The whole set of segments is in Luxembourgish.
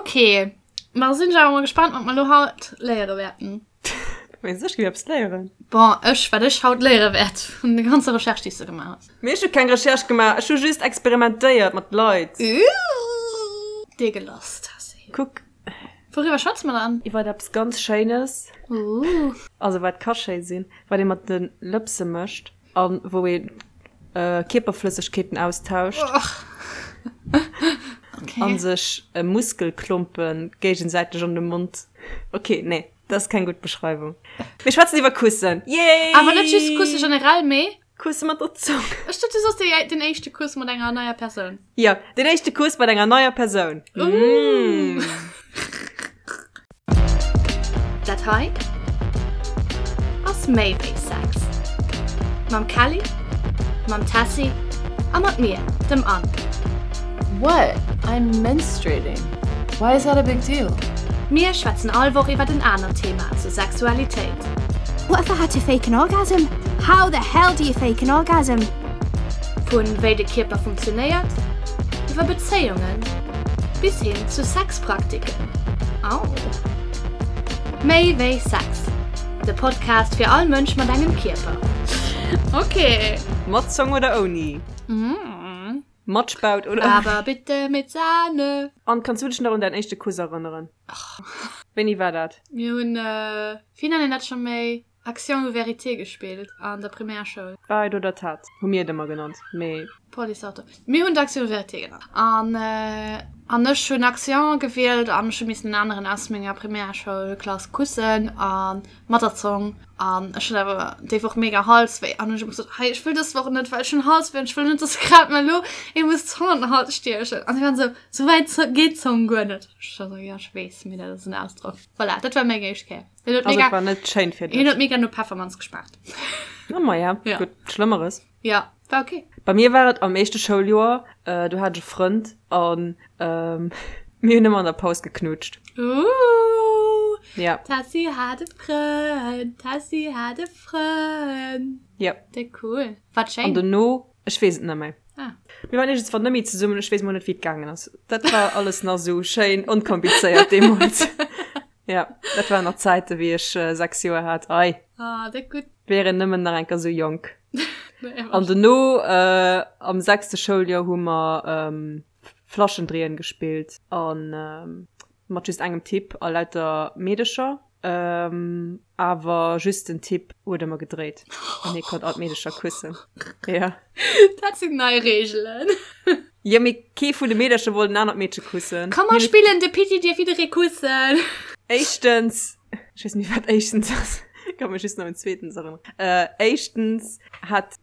Ok, ma sinn ech awer mol gespannt, wat mer elo haut léiere wäerten. Mengst ech géif eppes léieren? Bon, ech, wat ech haut léiere wäert vun der ganzer Recherche, déi s de gemaach hues. Mee ech hu keng Recherche gemaach, ech hu just experimentéiert mat Leit. Ooh, dir gelass, Tessy. Kuck. Wouriwwer schwätze mer dann? Iwwer eppes ganz Schéines. Ooh. Also wat ka schéi sinn, wat ee mat de Lëpse mécht a wou ee Kierperflëssegkeeten austauscht. Okay. A sech Muskelklompe géigesäiteg an de Mond. Okay, nee, dat ass keng gutt Beschreiwung. Mir schwätzen iwwer Kussen. Yay! Awer net just Kusse generell, mee. Kusse mat der Zong. Ech dacht, du soss déi, den éischte Kuss mat enger neier Persoun. Jo, den éischte Kuss mat enger neier Persoun. Mmh. Dat hei ass méi wéi Sex. Mam Kelly, mam Tessy a mat mir, dem Anne. What? I'm menstruating. Why is that a big deal? Mir schwätzen all Woch iwwert en anert Thema zur Sexualitéit. What if I had to fake an orgasm? How the hell do you fake an orgasm? Vu wéi de Kierper funktionéiert, iwwer Bezéiungen bis hin zu Sexpraktiken. Au! Méi wéi Sex, de Podcast fir all Mënsch mat engem Kierper. Ok. Mat Zong oder ouni? Mat Spaut oder ouni? Aber bitte mit Sahne! Anne, kanns du dech nach un däin éischte Kuss erënneren? Wéini war dat? Mir hunn, wéi nennen een dat scho méi? Action ou vérité gespillt an der Primärschoul. Wahrheit oder Tat hu mir et ëmmer genannt, mee. Police-Auto. Mir hunn d'Action ou vérité genannt. An, an ech hunn Action gewielt an ech hu missen en aneren aus menger Primärschoulklass kussen a mat der Zong. An ech hat awer déi Woch mega Halswéi an hunn ech ëmmer gesot, hei ech wëll dës Woch net, well ech hunn Halswéi an ech wëll net, dass grad mer elo ee muss d'Zong an den Hals stiechen. An si waren esou, sou wäit geet d'Zong guer net. Ech war esou, jo ech weess, mee dat ass en Ausdrock. Voilà, dat war meng éischt Kéier. Hien huet Also mega, et war net schéin fir hien dech. huet mega no Peffermanz geschmaacht. Oh ma ja, Ja. gutt, Schlëmmeres. Ja, war okay. Bei mir war et am éischte Schouljoer, äh, do hat ech e Frënd an ähm, mir hunn ëmmer an der Paus geknutscht. Ooh, Ja, Tessy hat e Frënd, Tessy hat e Frënd. ja. Déck cool. Wat An schéin. dono, ech weess et net méi. Ah. Mir waren iergendswann net méi zesummen, ech weess mol net, wéi et gaangen ass. Dat war alles nach esou schéin onkomplizéiert deemools. Ja, dat waren nach Zäiten, wéi ech 6 Joer hat. Ei. Ah, déck gutt. Wär een nëmmen nach eng Kéier sou jonk. An dono, äh, am sechste Schouljoer hu mer ähm, Flaschendréien gespillt an ähm, mat just engem Typ a lauter Meedecher. Ähm, awer just den Typ huet ëmmer gedréit an hie konnt all d'Meedecher kussen. Ja. Dat sinn nei Reegelen. Jo, mee kee vun de Meedercher wollt en anert Meedche kussen. Komm mer spillen de Pitti dierf jidderee kussen. Éischtens, ech weess net méi wat éischtens ass, ech ka mech just nach un zweetens erënneren. Éischtens hat,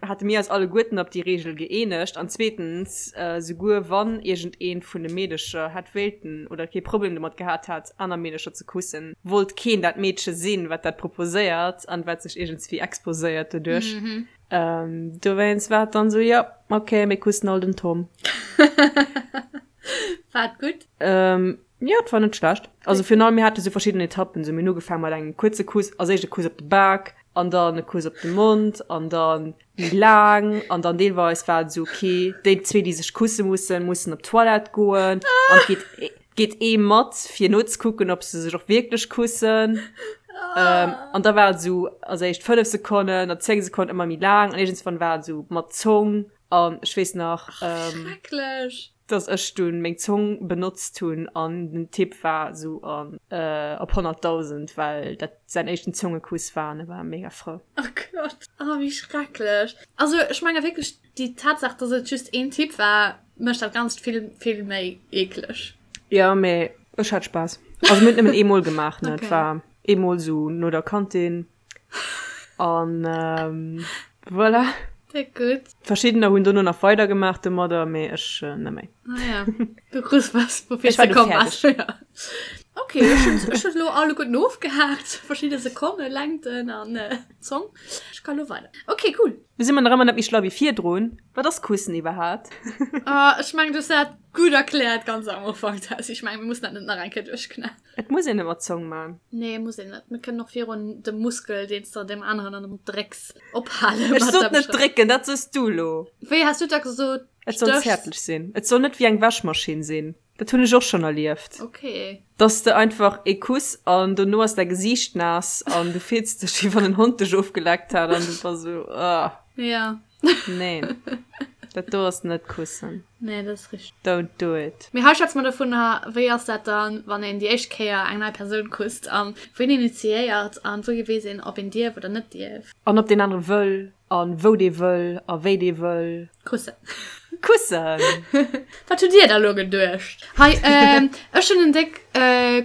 hate mir eis alleguerten op déi Reegel gëeenegt an zweetens, souguer wann iergendeent vun de Meedecher hätt wéilten oder kee Problem domat gehat hätt, aner Meedecher ze kussen, wollt keen dat Meedche sinn, wat dat proposéiert an wat sech iergendswéi exposéiert doduerch. Ähm, dowéinst war et dann sou, jo, okay, mir kussen all den Tom. War et gutt? Ähm, jo, et war net schlecht. Also virun allem, mir hate sou verschidden Etappen. Sou, mir hunn ugefaange mat engem kuerze Kuss, als éischt e Kuss op de Bak an dann e Kuss op de Mond an dann méi laang an dann deelweis war et sou, okay, déi zwee, déi sech kusse mussen, mussen op d'Toilette goen an et geet Geet ee mat fir nozekucken ob se sech och wierklech kussen. Ähm, an da war et esou als éischt 5 Sekonnen, dann 10 Sekonnen, ëmmer méi laang an iergendswann war et esou mat Zong an ech weess nach ähm, Schrecklech! dass ech dunn meng Zong benotzt hunn an den Typ war esou an äh, op 100.000 well dat säin éischten Zongekuss war an e war mega frou. Oh Gott, oh wéi schrecklech. Also ech menge wierklech déi Tatsaach, dass et just een Typ war, Mécht dat Ganzt vill, vill méi eekleg. Jo, mee ech hat Spaass. Also mir hunn et nëmmen eemol gemaach, ne. Et Okay. war eemol sou no der Kantin an voilà. Déck gutt. Verschiddener hunn dono nach weider gemaach domadder, mee ech net méi. Ah ja, du krus was, woufir Ech war du du komm bass. fäerdeg. Ja. Okay, ech hunn ech hunn elo alleguerten ofgehaakt, verschidde Sekonne, Längten an Zong. Ech ka lo weider. Okay, cool. Du si mer nach ëmmer net méi schlau wéi virdrun. Wat ass Kussen iwwerhaapt? Ah, ech mengen, du hues dat gutt erkläert ganz am Ufank, Tess. Ech mengen, mir mussen dat net nach eng Kéier duerchknallen. Et muss een net mat Zong man. Nee, muss een net. Mir kënnen och virun dem Muskel, deen s de deem aneren an de Mond drécks, ophalen Ech mat sot der net Beschreibung. drécken, dat sos du elo. Wéi has du da gesot? Et soll Stéchs? zäertlech sinn. Et soll net wéi eng Wäschmaschinn sinn. Dat hunn ech och schonn erlieft. Okay. Dass de einfach ee Kuss an dono ass däi Gesiicht naass an du fills dech wéi wann en Hond dech ofgeleckt hätt an du bass esou, ah. Ja. Neen. Dat do ass net kussen. Nee, dat ass richteg. Don't do it. Mee hei schwätze mer dovun, wéi ass dat dann, wann een déi éischt Kéier eng nei Persoun kusst an wien initiéiert an wouhi weess een, ob een dierf oder net dierf. An ob deen anere wëll an wou dee wëll a wéi dee wëll. Kussen. Kussen! Wat hutt Dir da lo geduecht? Hei, ech hunn en déck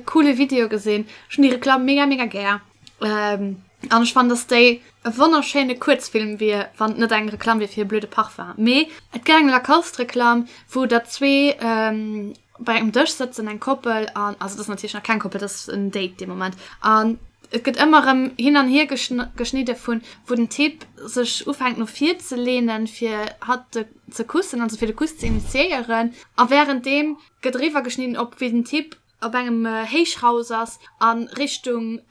coole Video gesinn. Ech hunn déi Reklamm mega, mega gär. An ech fannen, dass déi e wonnerschéine Kuerzfilm wier, wann et net eng Reklamm wier fir e blöde Parfum. Mee et gëtt eng Lacoste-Reklamm, wou der zwee bei engem Dësch sëtzen, eng Koppel, an, also et ass natierlech nach keng Koppel, et ass en Date dee Moment, an et gëtt ëmmer erëm hin an hier geschnidde vun, wou den Typ sech ufänkt no vir ze leenen, fir hatt ze kussen, also fir de Kuss ze initiéieren, a wärenddeem gëtt eriwwer geschnidden op wéi den Typ op engem Héichhaus ass a Richtung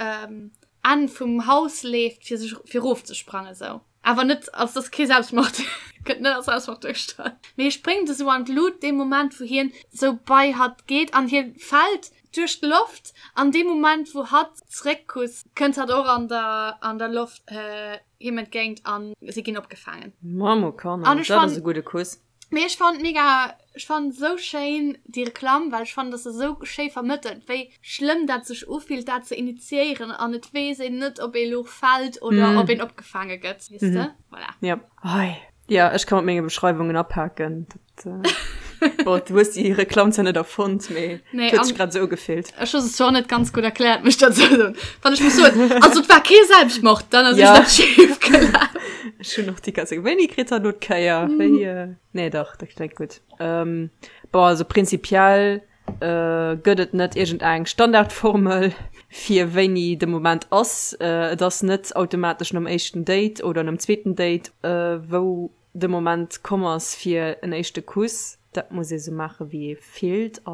Enn vum Haus leeft, fir sech fir erofzesprangen esou. Awer net, also et ass kee Selbstmord, gëtt net als Selbstmord duergestallt, mee hie spréngt esou an d'Lut dee Moment wou hien esou bei hatt geet an hie fält duerch d'Loft an dee Moment wou hatt zeréckkusst, kënnt hatt och an der an der Loft him entgéint an si ginn opgefaangen. Mamokanner, An ech dat ass fannen. e gudde Kuss. Mee ech fannen mega, ech fannen sou schéin déi Reklamm, well ech fannen dass se sou schéi vermëttelt wéi schlëmm dat sech ufillt dat ze initiéieren an et weess een net ob ee lo fält oder ob een opgefaange gëtt, weess de? Voilà. Ja. Hei. Ja, ech ka mat menge Beschreiwungen apaken. Dat, bon, du hues déi Reklamm zwar net erfonnt, mee Nee, et huet sech an grad esou ugefillt. ech hu se zwar och net ganz gutt erkläert, muss ech dozou soen. Wann ech muss soen, also et war kee Selbstmord, dann ass Ja. iergendeppes schief gelaf. Ech hunn och déi ganz Zäit, Wéini kritt hatt elo d'Kéier? Wéi, nee dach, dat kléngt gutt. Bon, also prinzipiell gëtt et net iergendeng Standardformel, fir wéini de Moment ass. Et ass net automatesch nom éischten Date oder nom zweeten Date, wou de Moment komm ass fir en éischte Kuss. Dat muss ee sou maache wéi ee fillt a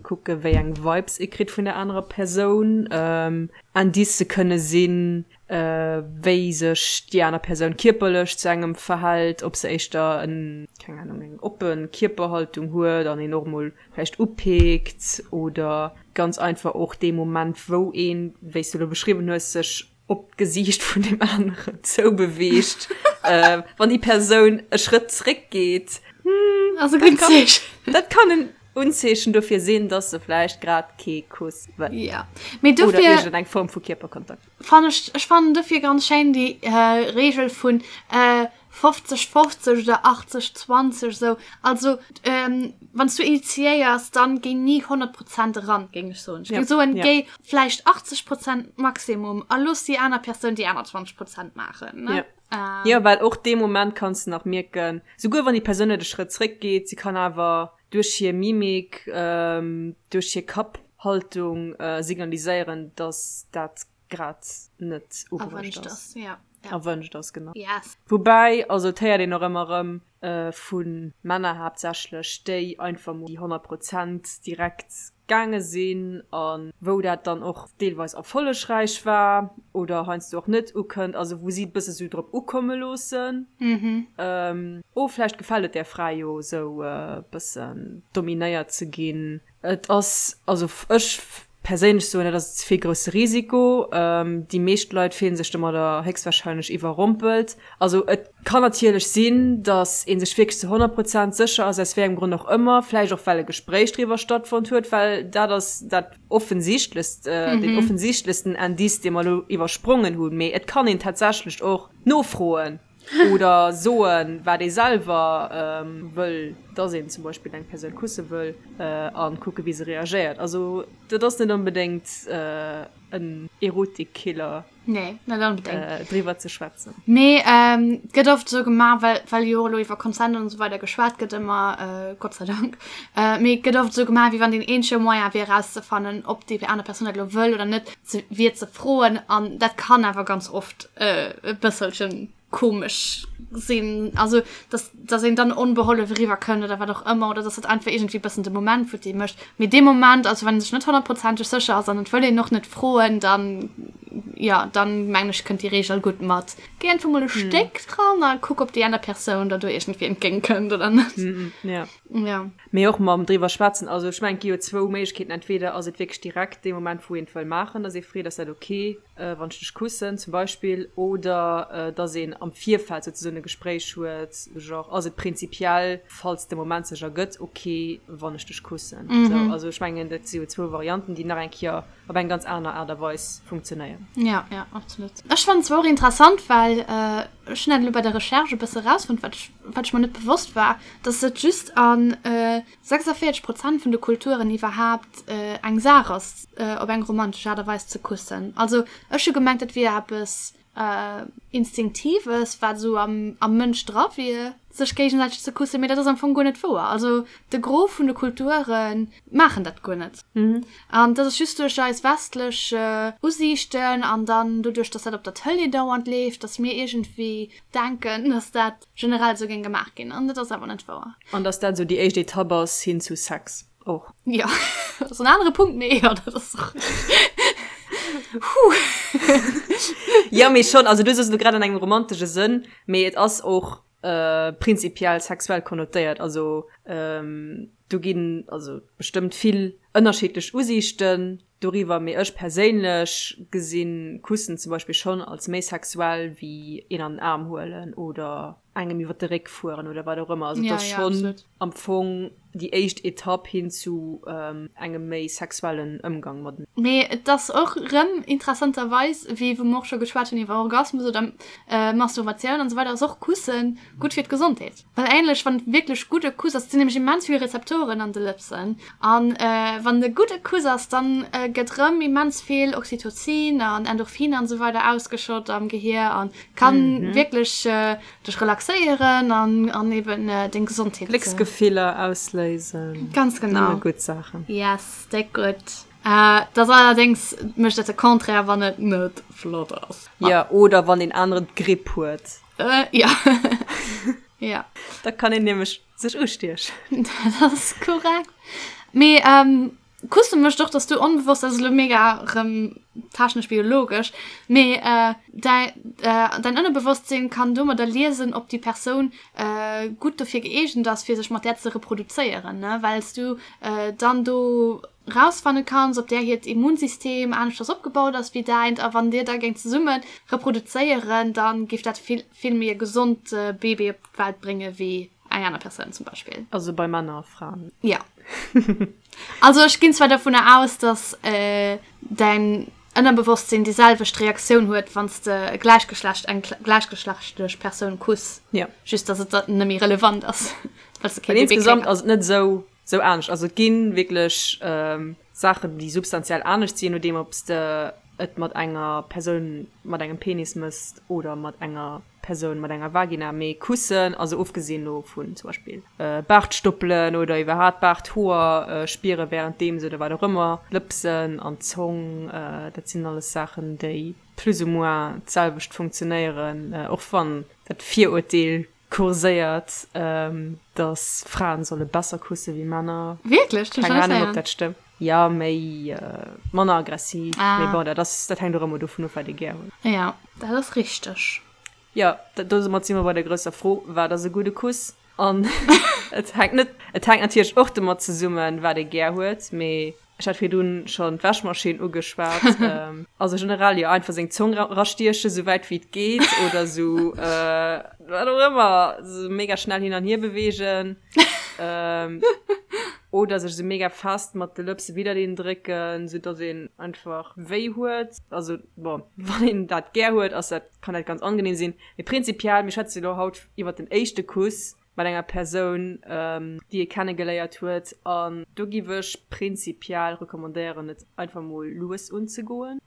kucke wéi eng Vibes ee kritt vun der anerer Persoun. Indicë kënne sinn, wéi sech déi aner Persoun kierperlech zu engem verhält, ob se éischter en, keng Ahnung, eng oppe Kierperhaltung huet an een och mol vläicht upeekt oder ganz einfach och dee Moment wou een, wéi s du elo beschriwwen hues, sech op d'Gesiicht vun deem aneren zoubeweegt, wann déi Persoun e Schrëtt zréckgeet, hm, ass e gutt Zeechen. Dat kann en Unzeechen dofir sinn, dass se vläicht grad kee Kuss wëll. Ja, mee dofir. Oder iergendeng Form vu Kierperkontakt. Fann ech, ech fannen dofir ganz schéin déi Reegel vun 50, 50 oder 80, 20 esou. Also wann s du initiéiers, dann géi ni 100 Prozent eran, géing ech soen. Ech géing soen, géi vläicht 80 Prozent Maximum a looss déi aner Persoun déi aner 20 Prozent maachen, ne? Jo, well och dee Moment kanns de nach mierken, souguer wann déi Persoun net e Schrëtt zréckgeet, si kann awer duerch hir Mimik, duerch hir Kapphaltung signaliséieren, dass dat grad net ubruecht ass. Ja. Erwënscht ass, genau. Yes. Woubäi, also et héiert een och ëmmer erëm vu Männer haaptsächlech, déi einfach mol déi 100 Prozent direkt gaange sinn a wou dat dann och deelweis erfollegräich war oder heiansdo och net ukënnt, also wou si et bësse sou drop ukomme loossen, oh vläicht gefält et där Fra jo esou e bëssen dominéiert ze ginn. Et ass, also ech perséinlech soen, dat ass ze vill grousse Risiko. Déi meescht Leit fillen sech domadder héchstwahrscheinlech iwwerrompelt. Also et kann natierlech sinn, datt ee sech wierklech zu 100 Prozent sécher ass, aus wéi engem Grond och ëmmer, vläicht och well e Gespréich driwwer stattfonnt huet, well dat ass dat offensichtlechst, deen offensichtlechsten Indice, dee mer elo iwwersprongen hunn. Mee et kann een tatsächlech och nofroen. Oder soen, wat ee selwer wëll, dass een zum Beispill eng Persoun kusse wëll, a kucke wéi se reagéiert. Also dat ass net onbedéngt en Erotikkiller. Nee, net onbedéngt. Driwwer ze schwätzen. Mee et gëtt oft esou gemaach, well, well jo och elo iwwer Consent an esou weider geschwat gëtt ëmmer, Gott sei Dank, mee et gëtt oft esou gemaach, wéi wann deen eenzege Moyen wier erauszefannen, ob déi aner Persoun dat elo wëll oder net, ze, wier ze froen. An dat kann awer ganz oft e bësselchen komesch sinn, also dass, dass een dann onbehollef eriwwer kënnt oder wat och ëmmer, oder dass dat einfach iergendwéi e bëssen de Moment futti mécht. Mee dee Moment, also wann ee sech net honnertprozenteg sécher ass an et wëll een och net froen, dann. jo, dann mengen ech kënnt déi Reegel gutt mat. Géi einfach mol e Stéck dran a kuck ob déi aner Persoun der do iergendwéi entgéint kënnt oder net. Ja. Ja. Mee och mam driwwer schwätzen, also ech mengen et gi jo zwou Méiglechkeeten, entweder ass et wierklech direkt dee Moment wou een et wëll maachen, dass ee freet ass dat ok wann ech dech kussen zum Beispill, oder dass een am Virfeld souzesoen e Gespréich huet, genre ass et prinzipiell falls de Moment sech ergëtt ok wann ech dech kussen. Sou, also ech mengen dat si jo zwou Varianten déi nach eng Kéier op eng ganz aner Aart a Weis funktionéieren. Ja, ja, absolut. Ech fannen zwar och interessant, well ech hunn dat elo bei der Recherche e bësse erausfonnt, wat ech, wat ech mer net bewosst war, dass et just a 46 Prozent vun de Kulturen iwwerhaapt eng Saach ass, op eng romantesch Aart a Weis ze kussen. Also ech hu gemengt, dat wier eppes Instinktives, wat esou am, am Mënsch dra wier, sech géigesäiteg ze kussen, mee dat ass am Fong guer net wouer. Also de Gros vun de Kulture maachen dat guer net. An dat ass just duerch eis westlech Usiichten an dann doduerch, dass dat op der Tëlee dauernd leeft, dass mir iergendwéi denken, dass dat generell esou géing gemaach ginn. An dat ass awer net wouer. An dass dat esou déi éischt Etapp ass hin zu Sex och. Jo, dat ass en anere Punkt, mee jo, dat ass och. Huh. Jo, mee schonn, also du soos elo grad an engem romantesche Sënn, mee et ass och prinzipiell sexuell konnotéiert. Also do ginn also bestëmmt vill ënnerschiddlech Usiichten doriwwer, mee ech perséinlech gesinn Kussen zum Beispill schonn als méi sexuell wéi een an den Aarm huelen oder engem iwwer de Réck fueren oder wat och ëmmer. Also et ass schonn am Fong déi éischt Etapp hin zu engem méi sexuellen Ëmgang mateneen. Mee et ass och rëm interessanterweis, wéi wou mer och scho geschwat hunn iwwer Orgasmus oder Masturbatioun an esou weider, ass och Kusse gutt fir d'Gesondheet. Well ähnlech, wann et wierklech gudde Kuss ass, et sinn nämlech immens vill Rezeptoren an de Lëpsen, an wann et e gudde Kuss ass, dann gëtt rëm immens vill Oxytocin an Endorphiner an esou weider ausgeschott am Gehier an kann wierklech dech relaxéieren an an eben deng Gesondheet. Glécksgefiller ausléisen. Ganz genau. Nëmme gutt Saachen. Yes, déck gutt. Dat ass allerdéngs mécht dat de Contraire, wann et net flott ass. Jo, oder wann een aneren d'Gripp huet. Äh, ja. ja. Da kann een nämlech sech ustiechen. Dat ass korrekt. Mee ähm, Kusse mécht och, dass du onbewosst, dat ass elo mega rëm technesch biologesch, mee äh, däi, äh, däin Ënnerbewosstsinn kann domadder liesen, ob déi Persoun äh, gutt dofir gëeegent ass, fir sech mat där ze reproduzéieren, ne, well s du äh, dann do rausfanne kanns, ob där hiert Immunsystem aneschters opgebaut ass wéi däint, a wann dir da géingt zesumme reproduzéieren, da géif dat vill, vill méi e gesond Baby op d'Welt brénge wéi eng aner Persoun zum Beispill. Also bei Männer a Fraen. Ja. Also ech ginn zwar dovunner aus, dass däin Ënnerbewosstsinn déi selwecht Reaktioun huet, wann s de e gläichgeschlecht, eng gläichgeschlechtlech Persoun kuss. Ja. Just dass et dann net méi relevant ass, well s de kee Baby kritt. Insgesamt ass et net esou Sou anescht. Also et gi wierklech Saachen, déi substantiell anescht sinn, je nodeem ob s de et mat enger Persoun mat engem Penis mëss oder mat enger Persoun mat enger Vagina. Mee kussen, also ofgesinn elo vun zum Beispill Baartstoppelen oder iwwerhaapt Baarthoer spiere wärenddeems oder wat och ëmmer, d'Lëpsen an d'Zong, dat sinn alles Saachen, déi plus ou moins d'selwecht funktionéieren, och wann dat Virurteel kurséiert, dass Fraen solle besser kusse wéi Männer. Wierklech? Keng Ahnung, ob dat stëmmt. Jo, méi, manner aggressiv. Ah. Mee bon, dat ass, dat hänkt och ëmmer dovun of, wat ee gär huet. Jo, dat ass richteg. Jo, domat si mer bei der grousser Fro, Wat ass e gudde Kuss? An et hänkt net, et hänkt natierlech och domat zesummen, wat ee gär huet, mee Ech hat virdrun schon d'Wäschmaschinn ugeschwat. Also generell jo einfach seng Zong rastiechen sou wäit wéi et geet oder sou wat och ëmmer, sou mega schnell hin an hier beweegen oder sech sou mega fest mat de Lëpse widdereen drécken, sou dass een einfach wéi huet. Also bon, wann een dat gär huet, ass dat, kann dat ganz angenehm sinn. Mee prinzipiell, mir schwätze lo haut iwwert den éischte Kuss. mat enger Persoun, déi ee kennegeléiert huet. An do giff ech prinzipiell recommandéieren, et einfach mol lues unzegoen,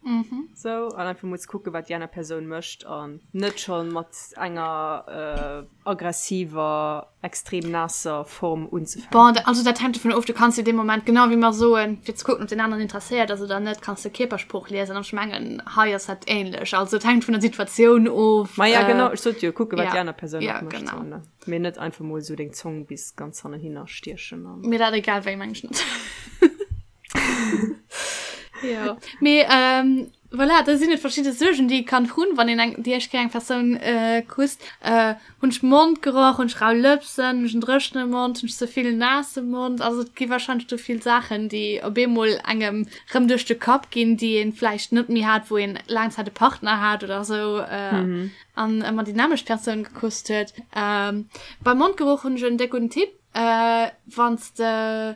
sou, an einfach mol ze kucken, wat déi aner Persoun mécht, an net scho mat enger aggressiver, extrem naasser Form unzefänken. Bon, also dat hänkt dovun of, du kanns jo dee Moment, genau wéi mer soen, fir ze kucken, ob deen aneren interesséiert ass oder net, kanns de Kierpersprooch liesen. An ech mengen, hei ass dat ähnlech. Also et hänkt vun der Situatioun of. Ma ja, genau, ech sot jo, kucken, wat déi aner Persoun och mécht. Genau. Ne? Mee net einfach mol sou deng Zong bis ganz hannenhinner stiechen. An... Mee dat egal wéi, meng ech net. Jo. Mee ähm, Voilà, da sinn et verschidde Suergen, déi ee kann hunn, wann een eng, déi éischt Kéier eng Persoun kusst. Hunn ech Mondgeroch? Hunn ech rau Lëpsen? Hunn ech en dréchene Mond? Hunn ech ze vill naasse Mond? Also et gi warscheinlech do vill Saachen, déi op eemol engem rëm duerch de Kapp ginn, déi ee vläicht net méi hat, wou een laang Zäit e Partner hat oder esou an ëmmer déi nämmlecht Persoun gekusst huet. Beim Mondgeroch hunn ech en déck gudden Tipp, Wann s de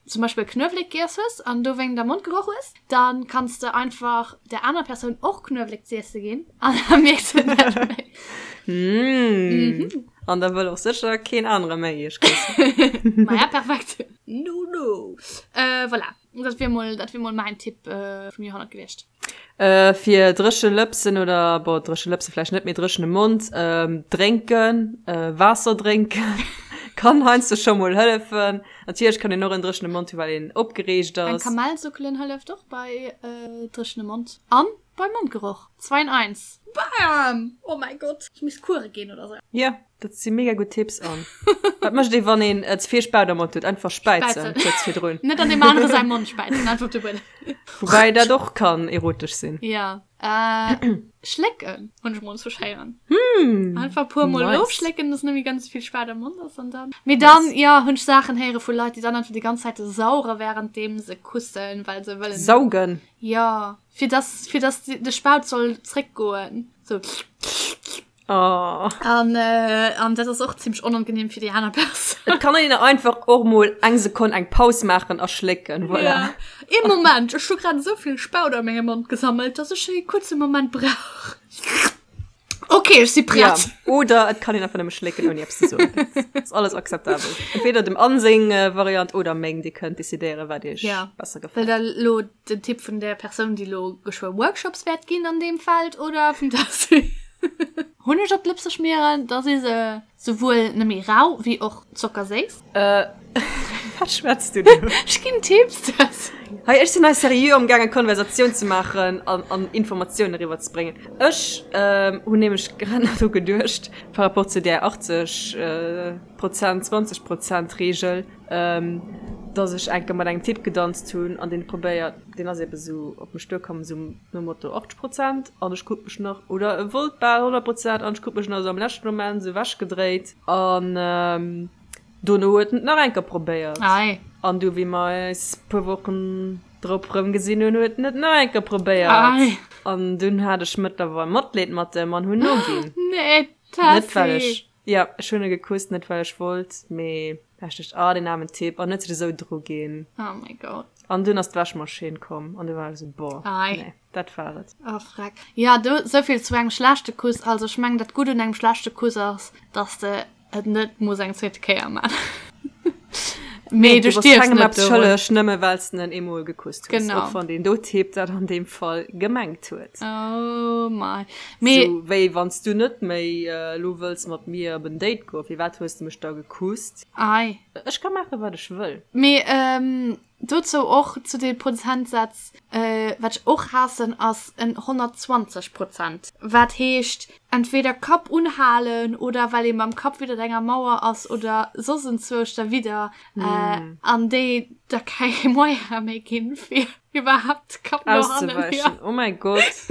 zum Beispill Knuewelek giess hues an dowéingt am Mond geroch hues, dann kanns de einfach der anerer Persoun och Knuewelek z'iesse ginn an da mierkt se et net méi. Mmh. An da wëll och sécher keen anere méi iech kussen. Maja, perfekt. No, no. Äh, voilà. Dat wier mol, dat wier mol mäin Tipp vum Joerhonnert gewiescht. Fir dréche Lëpsen oder, bon, dréche Lëpse vläicht net, mee dréchene Mond, drénken, Waasser drénken kann heiansdo scho mol hëllefen. Natierlech kann een och en dréchene Mond hu well een opgereegt ass. Eng Kamell suckelen hëlleft och bei dréchene Mond an bei Mondgeroch. Zwei in eins. Bam! Oh mäi Gott, ech misst Coure ginn oder sou. Jo. Dat si mega gutt Tipps. An wat mécht ee wann een ze vill Spaut am Mond huet? Einfach späizen kuerz virdrun. Net an deem anere säi Mond späizen, einfach op de Buedem. Woubäi dat och kann erotesch sinn. Ja. Schlécken hunn ech mol zu schéieren. Einfach e puer mol ofschlécken, dass net méi ganz vill Spaut am Mond ass an dann. Mee dann, jo, hunn ech Saachen héiere vu Leit, déi dann einfach déi ganz Zäit sauere wärenddeem se kussen, well se wëllen. Saugen? Jo, fir dass, fir dass de Spaut soll zréckgoen. Sou. Oh. An, äh, an dat ass och zimmlech onangenehm fir déi aner Persoun. Et kann een einfach och mol eng Sekonn eng Paus maachen a schlécken, voilà. Ja. Ee Moment, ech hu grad esou vill Spaut a mengem Mond gesammelt, dass ech e kuerze Moment brauch. Okay, ech si Ja. prett. Oder et kann een einfach nëmme schlécken, ouni eppes ze soen. Dat ass alles akzeptabel. Entweder dem Anne seng Variant oder meng, Dir kënnt decidéieren, wat iech Ja. besser Wëllt gefält. der lo den Tipp vun der Persoun, déi lo geschwë Workshops wäert ginn an deem Feld oder vum Tessy? Hunneg op d'Lëpse schmieren, da si se souwuel net méi rau wéi och zockerséiss. Äh, wat schwätz du do? Ech ginn Tipps, Tessy. Hei, ech sinn hei seriö amgaangen Konversatioun ze maachen an, an Informatiounen eriwwer ze bréngen. Ech hunn nämlech grad nach dru geduecht, par rapport zu där 80 Prozent, 20 Prozent Reegel, dass ech eng Kéier mat engem Typ gedanzt hunn an deen huet probéiert, deen ass ebe sou op mech duerkomm, sou nom Motto 80 Prozent an ech krut mech nach, oder e wollt bal 100 Prozent an ech krut mech nach sou am leschte Moment sou ewechgedréit an dono huet en et nach eng Kéier probéiert an du wéi mer eis puer Wochen drop rëm gesinn hunn, huet en et nach eng Kéier probéiert an dunn hat ech mëttlerweil Matleed mat em an hunn noginn. Nee, Net well Tessy! ech Jo, ech hunn e gekusst, net well ech wollt, mee well ech duecht, ah, deen aarmen Typ, an huet sech esou dru ginn. Oh my God. An dunn ass d'Wäschmaschinn komm an du war ech esou, boah, Ei. nee, dat war et. Oh freck. Jo, do, souvill zu engem schlechte Kuss. Also ech mengen, dat Gutt un engem schlechte Kuss ass, dass de et net muss eng zweete Kéier man. Mee Nee, du du bass stierfs kengem net eppes dorun. schëlleg, nëmme well s de en eemol gekusst hues, Genau. och wann deen do Typ dat an deem Fall gemengt huet. Oh my. Mee. Sou wéi wann s du net méi elo wëlls mat mir op en Date goen, firwat hues de mech da gekusst? Ei. Ech ka maachen, wat ech wëll. Mee dozou och zu de Prozentsätz, wat ech och haassen, ass en 120 Prozent. Wat heescht, entweder Kapp unhalen oder well ee mam Kapp widdert enger Mauer ass oder soss enzwousch derwidder, an déi da keng Moyen méi ginn, fir iwwerhaapt Kapp no hannen. Auszeweischen, oh mäi Gott.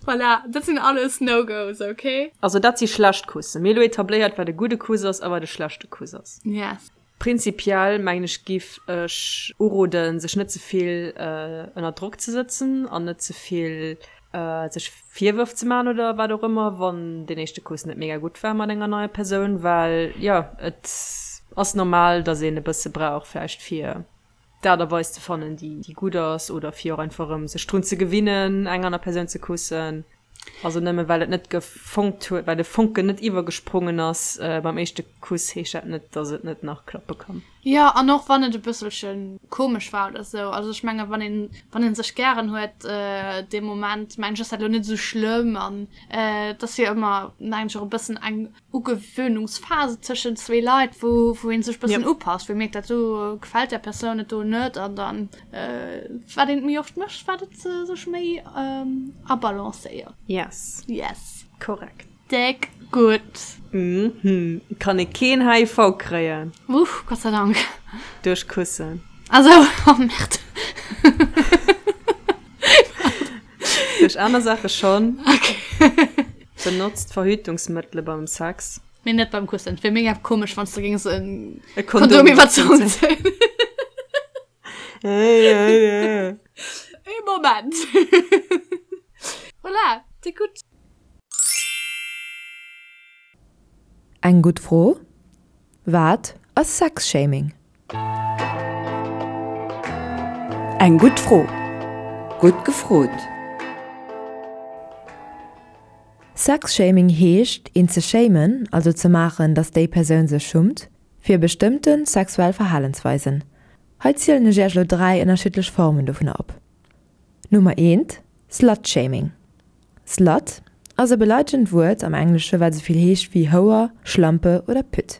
Voilà, dat sinn alles No-Gos, okay? Also dat si schlecht Kussen. Mir hu lo etabléiert, wat e gudde Kuss ass a wat e schlechte Kuss ass. Yes. Prinzipiell mengen ech giff ech uroden, sech net ze vill ënner Drock ze sëtzen an net ze vill sech Virwërf ze man oder wat och ëmmer, wann deen éischte Kuss net mega gutt war mat enger neier Persoun, well jo et ass normal, datt een e bësse brauch vläicht fir d'Aart a Weis ze fannen, déi gutt ass, oder fir och einfach erëm sech drun ze gewinnen, eng aner Persoun ze kussen. Also nëmme well et net gefonkt huet, well de Fonken net iwwergesprongen ass beim éischte Kuss, heescht dat net, dass et net nach klappe kann. Jo, an och wann et e bësselche komesch war oder sou. Also ech menge wann een, wann ee sech gären huet dee Moment, mengen ech, ass dat elo net esou schlëmm. An et ass jo ëmmer, mengen ech, och e bëssen eng Ugewöhnungsphase tëschent zwee Leit, wou, wou een sech bëssen upasst, wou ee mierkt, dat do gefält där Persoun et do net an dann, wat een et méi oft mécht, wat et sech méi abalancéiert. Yes. Yes. Korrekt. Déck gutt. Mhm. Kann ee keen HIV kréien. Uff, Gott sei Dank. Duerch Kussen. Ah sou, oh Merde. Aner Saache schonn. Benotzt Verhütungsmëttele beim Sex. Mee net beim Kussen. Et wier mega komesch, wann s de géings e Kondom iwwer d'Zong zéien. Ee Moment. Voilà, c'est gutt. Eng gutt Fro, Wat ass Sexshaming? Eng gutt Fro. Gutt gefrot! Sexshaming heescht, een ze shamen, also ze maachen, datt déi Persoun sech schummt, fir bestëmmte sexuell Verhalensweisen. Hei zielen ech iech elo 3 ënnerschiddlech Formen dovunner op. Nummer eent, Slut-Shaming. Slut ass e beleidegend Wuert am Englesche wat esouvill heescht wéi Houer, Schlampe oder Pütt.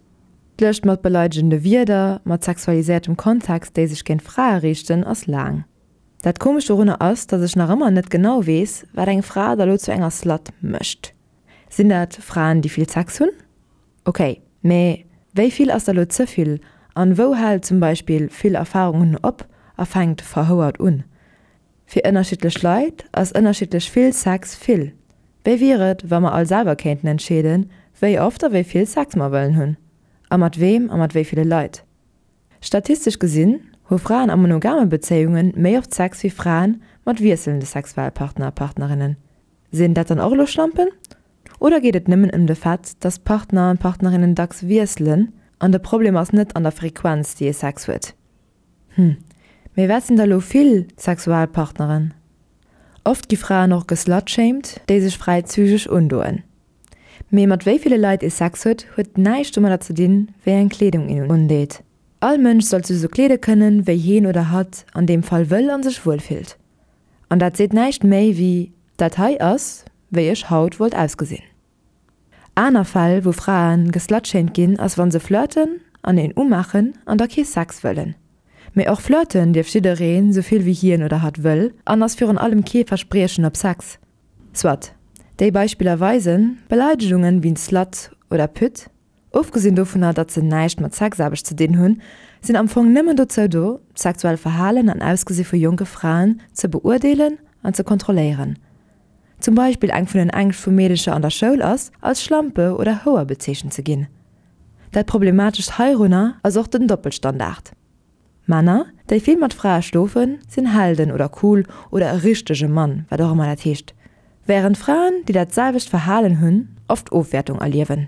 D'Lëscht mat beleidegende Wierder mat sexualiséiertem Kontext, déi sech géint Frae riichten, ass laang. Dat Komescht dorunner ass, datt ech nach ëmmer net genau weess, wat eng Fra da lo zu enger Slut mécht. Sinn dat Fraen, déi vill Sex hunn? Ok, mee wéi vill ass da lo ze vill an wou hält zum Beispill vill Erfarung hunn op a fänkt verhouert un? Fir ënnerschiddlech Leit ass ënnerschiddlech vill Sex vill. Wéi wier et, wa mer all selwer kéinten entscheeden, wéi oft a wéi vill Sex mer wëllen hunn? A mat weem a mat wéi ville Leit? Statistesch gesinn hu Fraen a monogame Bezéiunge méi oft Sex wéi Fraen mat wiesselnde Sexualpartner a Partnerinnen. Sinn dat dann och elo Schlampen? Oder geet et nëmmen ëm de Fait, dass d'Partner an d'Partnerinnen dacks wiesselen an de Problem ass net an der Frequenz, déi ee Sex huet? Hm, mee wat sinn da lo vill Sexualpartneren? Oft gi Fraen och geslutshamed, déi sech fräizügeg undoen. Mee mat wéi ville Leit ee Sex huet, huet näischt domadder ze dinn, wéi eng Kleedung een undeet. All Mënsch sollt sech sou kleede kënnen, wéi heen oder hatt an deem Fall wëll an sech wuel fillt. An dat seet näischt méi wéi, dat hei ass, wéi ech haut wollt ausgesinn. Aner Fäll wou Fraen geslutshamed ginn ass wann se flirten an een umaachen an da kee Sex wëllen. Mee och flirten dierf jiddereen sou vill wéi hien oder hatt wëll an ass virun allem kee Verspriechen op Sex. Soit, déi Beispiller weisen, Beleidegungen wéi Slut oder Pütt, ofgesinn dovunner datt se näischt mat Sexaarbecht ze dinn hunn, sinn am Fong nëmmen dozou do, d'sexuell Verhalen an Ausgesi vu jonke Fraen ze beurdeelen an ze kontrolléieren. Zum Beispill eng vun den Ängscht vu Meedecher an der Schoul ass, als Schlampe oder Houer bezeechent ze ginn. Dat Problematescht heirunner ass och den Doppelstandard. Männer, déi vill mat Frae schlofen, sinn Helden oder cool oder e richtege Mann, wat och ëmmer dat heescht, wärend Fraen, déi dat selwecht Verhalen hunn, oft Ofwäertung erliewen.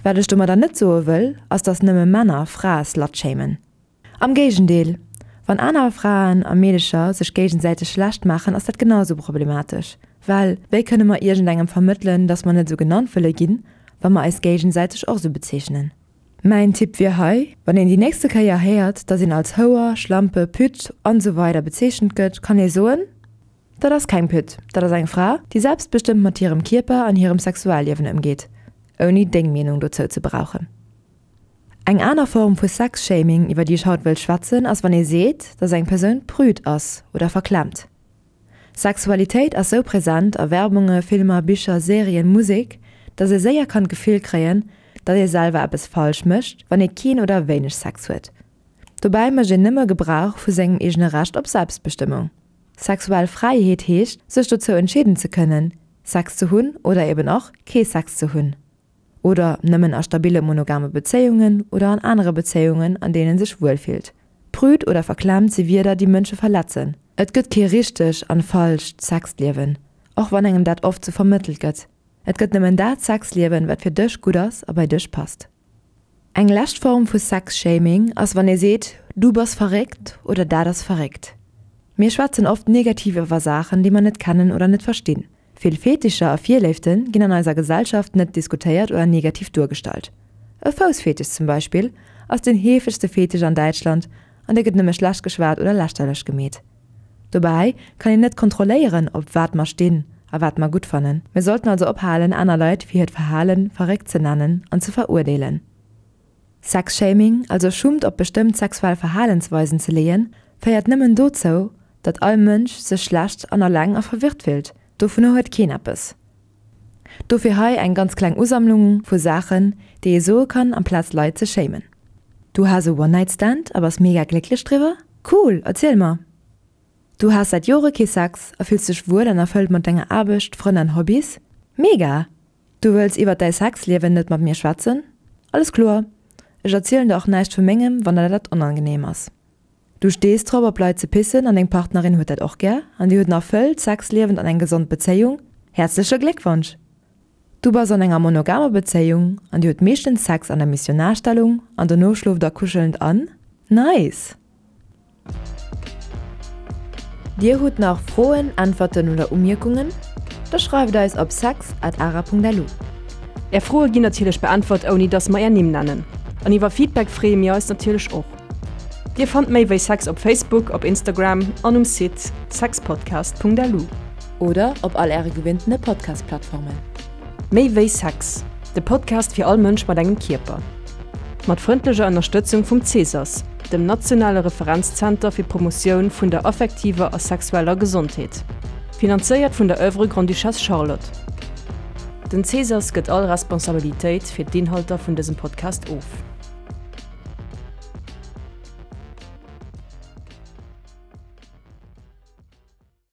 Wat ech domadder net soe wëll, ass dass nëmme Männer Frae slutshamen. Am Géigendeel, wann aner Fraen a Meedecher sech géigesäiteg schlecht maachen, ass dat genau sou problematesch. Well wéi kënne mer iergendengem vermëttelen, dass mer net sou genannt wëlle ginn, wa mer eis géigesäiteg och sou bezeechnen? Mäin Tipp wier hei, Wann een déi nächste Kéier héiert, dass een als Houer, Schlampe, Pütt an esou weider bezeechent gëtt, kann ee soen, Dat ass keng Pütt, dat ass eng Fra, déi selbstbestëmmt mat hirem Kierper an hirem Sexualliewen ëmgeet, ouni deng Meenung dozou ze brauchen. Eng aner Form vu Sex-Shaming, iwwer déi ech haut wëll schwätzen, ass wann ee seet, dass eng Persoun prüd ass oder verklemmt. Sexualitéit ass sou present a Werbunge, Filmer, Bicher, Serien, Musek, dass ee séier kann d'Gefill kréien, datt ee selwer eppes falsch mécht, wann ee keen oder wéineg Sex huet. Dobäi mécht een nëmme Gebrauch vu sengem eegene Recht op Selbstbestëmmung. Sexuell Fräiheet heescht, sech dozou entscheeden ze kënnen, Sex ze hunn oder eben och kee Sex ze hunn. Oder nëmmen a stabille monogame Bezéiungen oder an anere Bezéiungen, an deenen sech wuel fillt. Prüd oder verklemmt si Wierder, déi Mënsche verletzen. Et gëtt kee richteg an falscht Sexliewen, och wann engem dat oft sou vermëttelt gëtt. Et gëtt nëmmen dat Sexliewen, wat fir dech gutt ass a bei dech passt. Eng lescht Form vu Sexshaming ass wann ee seet, du bass verréckt oder dat ass verréckt. Mir schwätzen oft negativ iwwer Saachen, déi mer net kennen oder net verstinn. Vill Fetischer a Virléifte ginn an eiser Gesellschaft net diskutéiert oder negativ duergestallt. E Foussfetisch zum Beispill ass den heefegste Fetisch an Däitschland an dee gëtt nëmme schlecht geschwat oder lächterlech gemeet. Dobäi kann een net kontrolléieren, op wat mer stinn a wat mer gutt fannen. Mir sollten also ophalen, aner Leit fir hiert Verhale verréckt ze nennen an ze verurdeelen. Sexshaming, also Schummt op bestëmmt sexuell Verhalensweisen ze leeën, féiert nëmmen dozou, datt all Mënsch sech schlecht an alleng a verwirrt fillt. Dovunner huet keen eppes. Dofir hei eng ganz kleng Usammlung vu Saachen, déi ee soe kann, amplaz Leit ze shamen. Du has e One-Night-Stand a bass mega glécklech driwwer? Cool, erziel mer! Du has säit Jore kee Sex a fills dech wuel an erfëllt mat denger Aarbecht, Frënn an Hobbys? Mega! Du wëlls iwwert däi Sexliewen net mat mir schwätzen? Alles kloer, ech erzielen der och näischt vu mengem, wann der dat onangenehm ass. Du stees drop op Leit ze pissen an deng Partnerin huet dat och gär an dir hutt en erfëllt Sexliewen an eng gesond Bezéiung? Häerzleche Gléckwonsch! Du bass an enger monogamer Bezéiung an dir hutt meeschtens Sex an der Missionarstellung an dono schlooft der kuschelnd an? Nice! Dir hutt nach Froen, Äntwerten oder Umierkungen? Da schreift eis op sex at ara.lu. Är Froe ginn natierlech beäntwert ouni dass mer är Nimm nennen. An iwwer Feedback freeë mir eis natierlech och. Dir fannt méi wéi Sex op Facebook, op Instagram an um Site sexpodcast.lu. Oder op all äre gewinntene Podcast-Plattformen. Méi wéi Sex, de Podcast fir all Mënsch mat engem Kierper. Mat frëndlecher Ënnerstëtzung vum CSAS, dem nationale Referenzzenter fir d'Promotioun vun der affektiver a sexueller Gesondheet. Finanzéiert vun der Oeuvre Grande-Duchesse Charlotte. Den CSAS gëtt all Responsabilitéit fir d'Inhalter vun dësem Podcast of.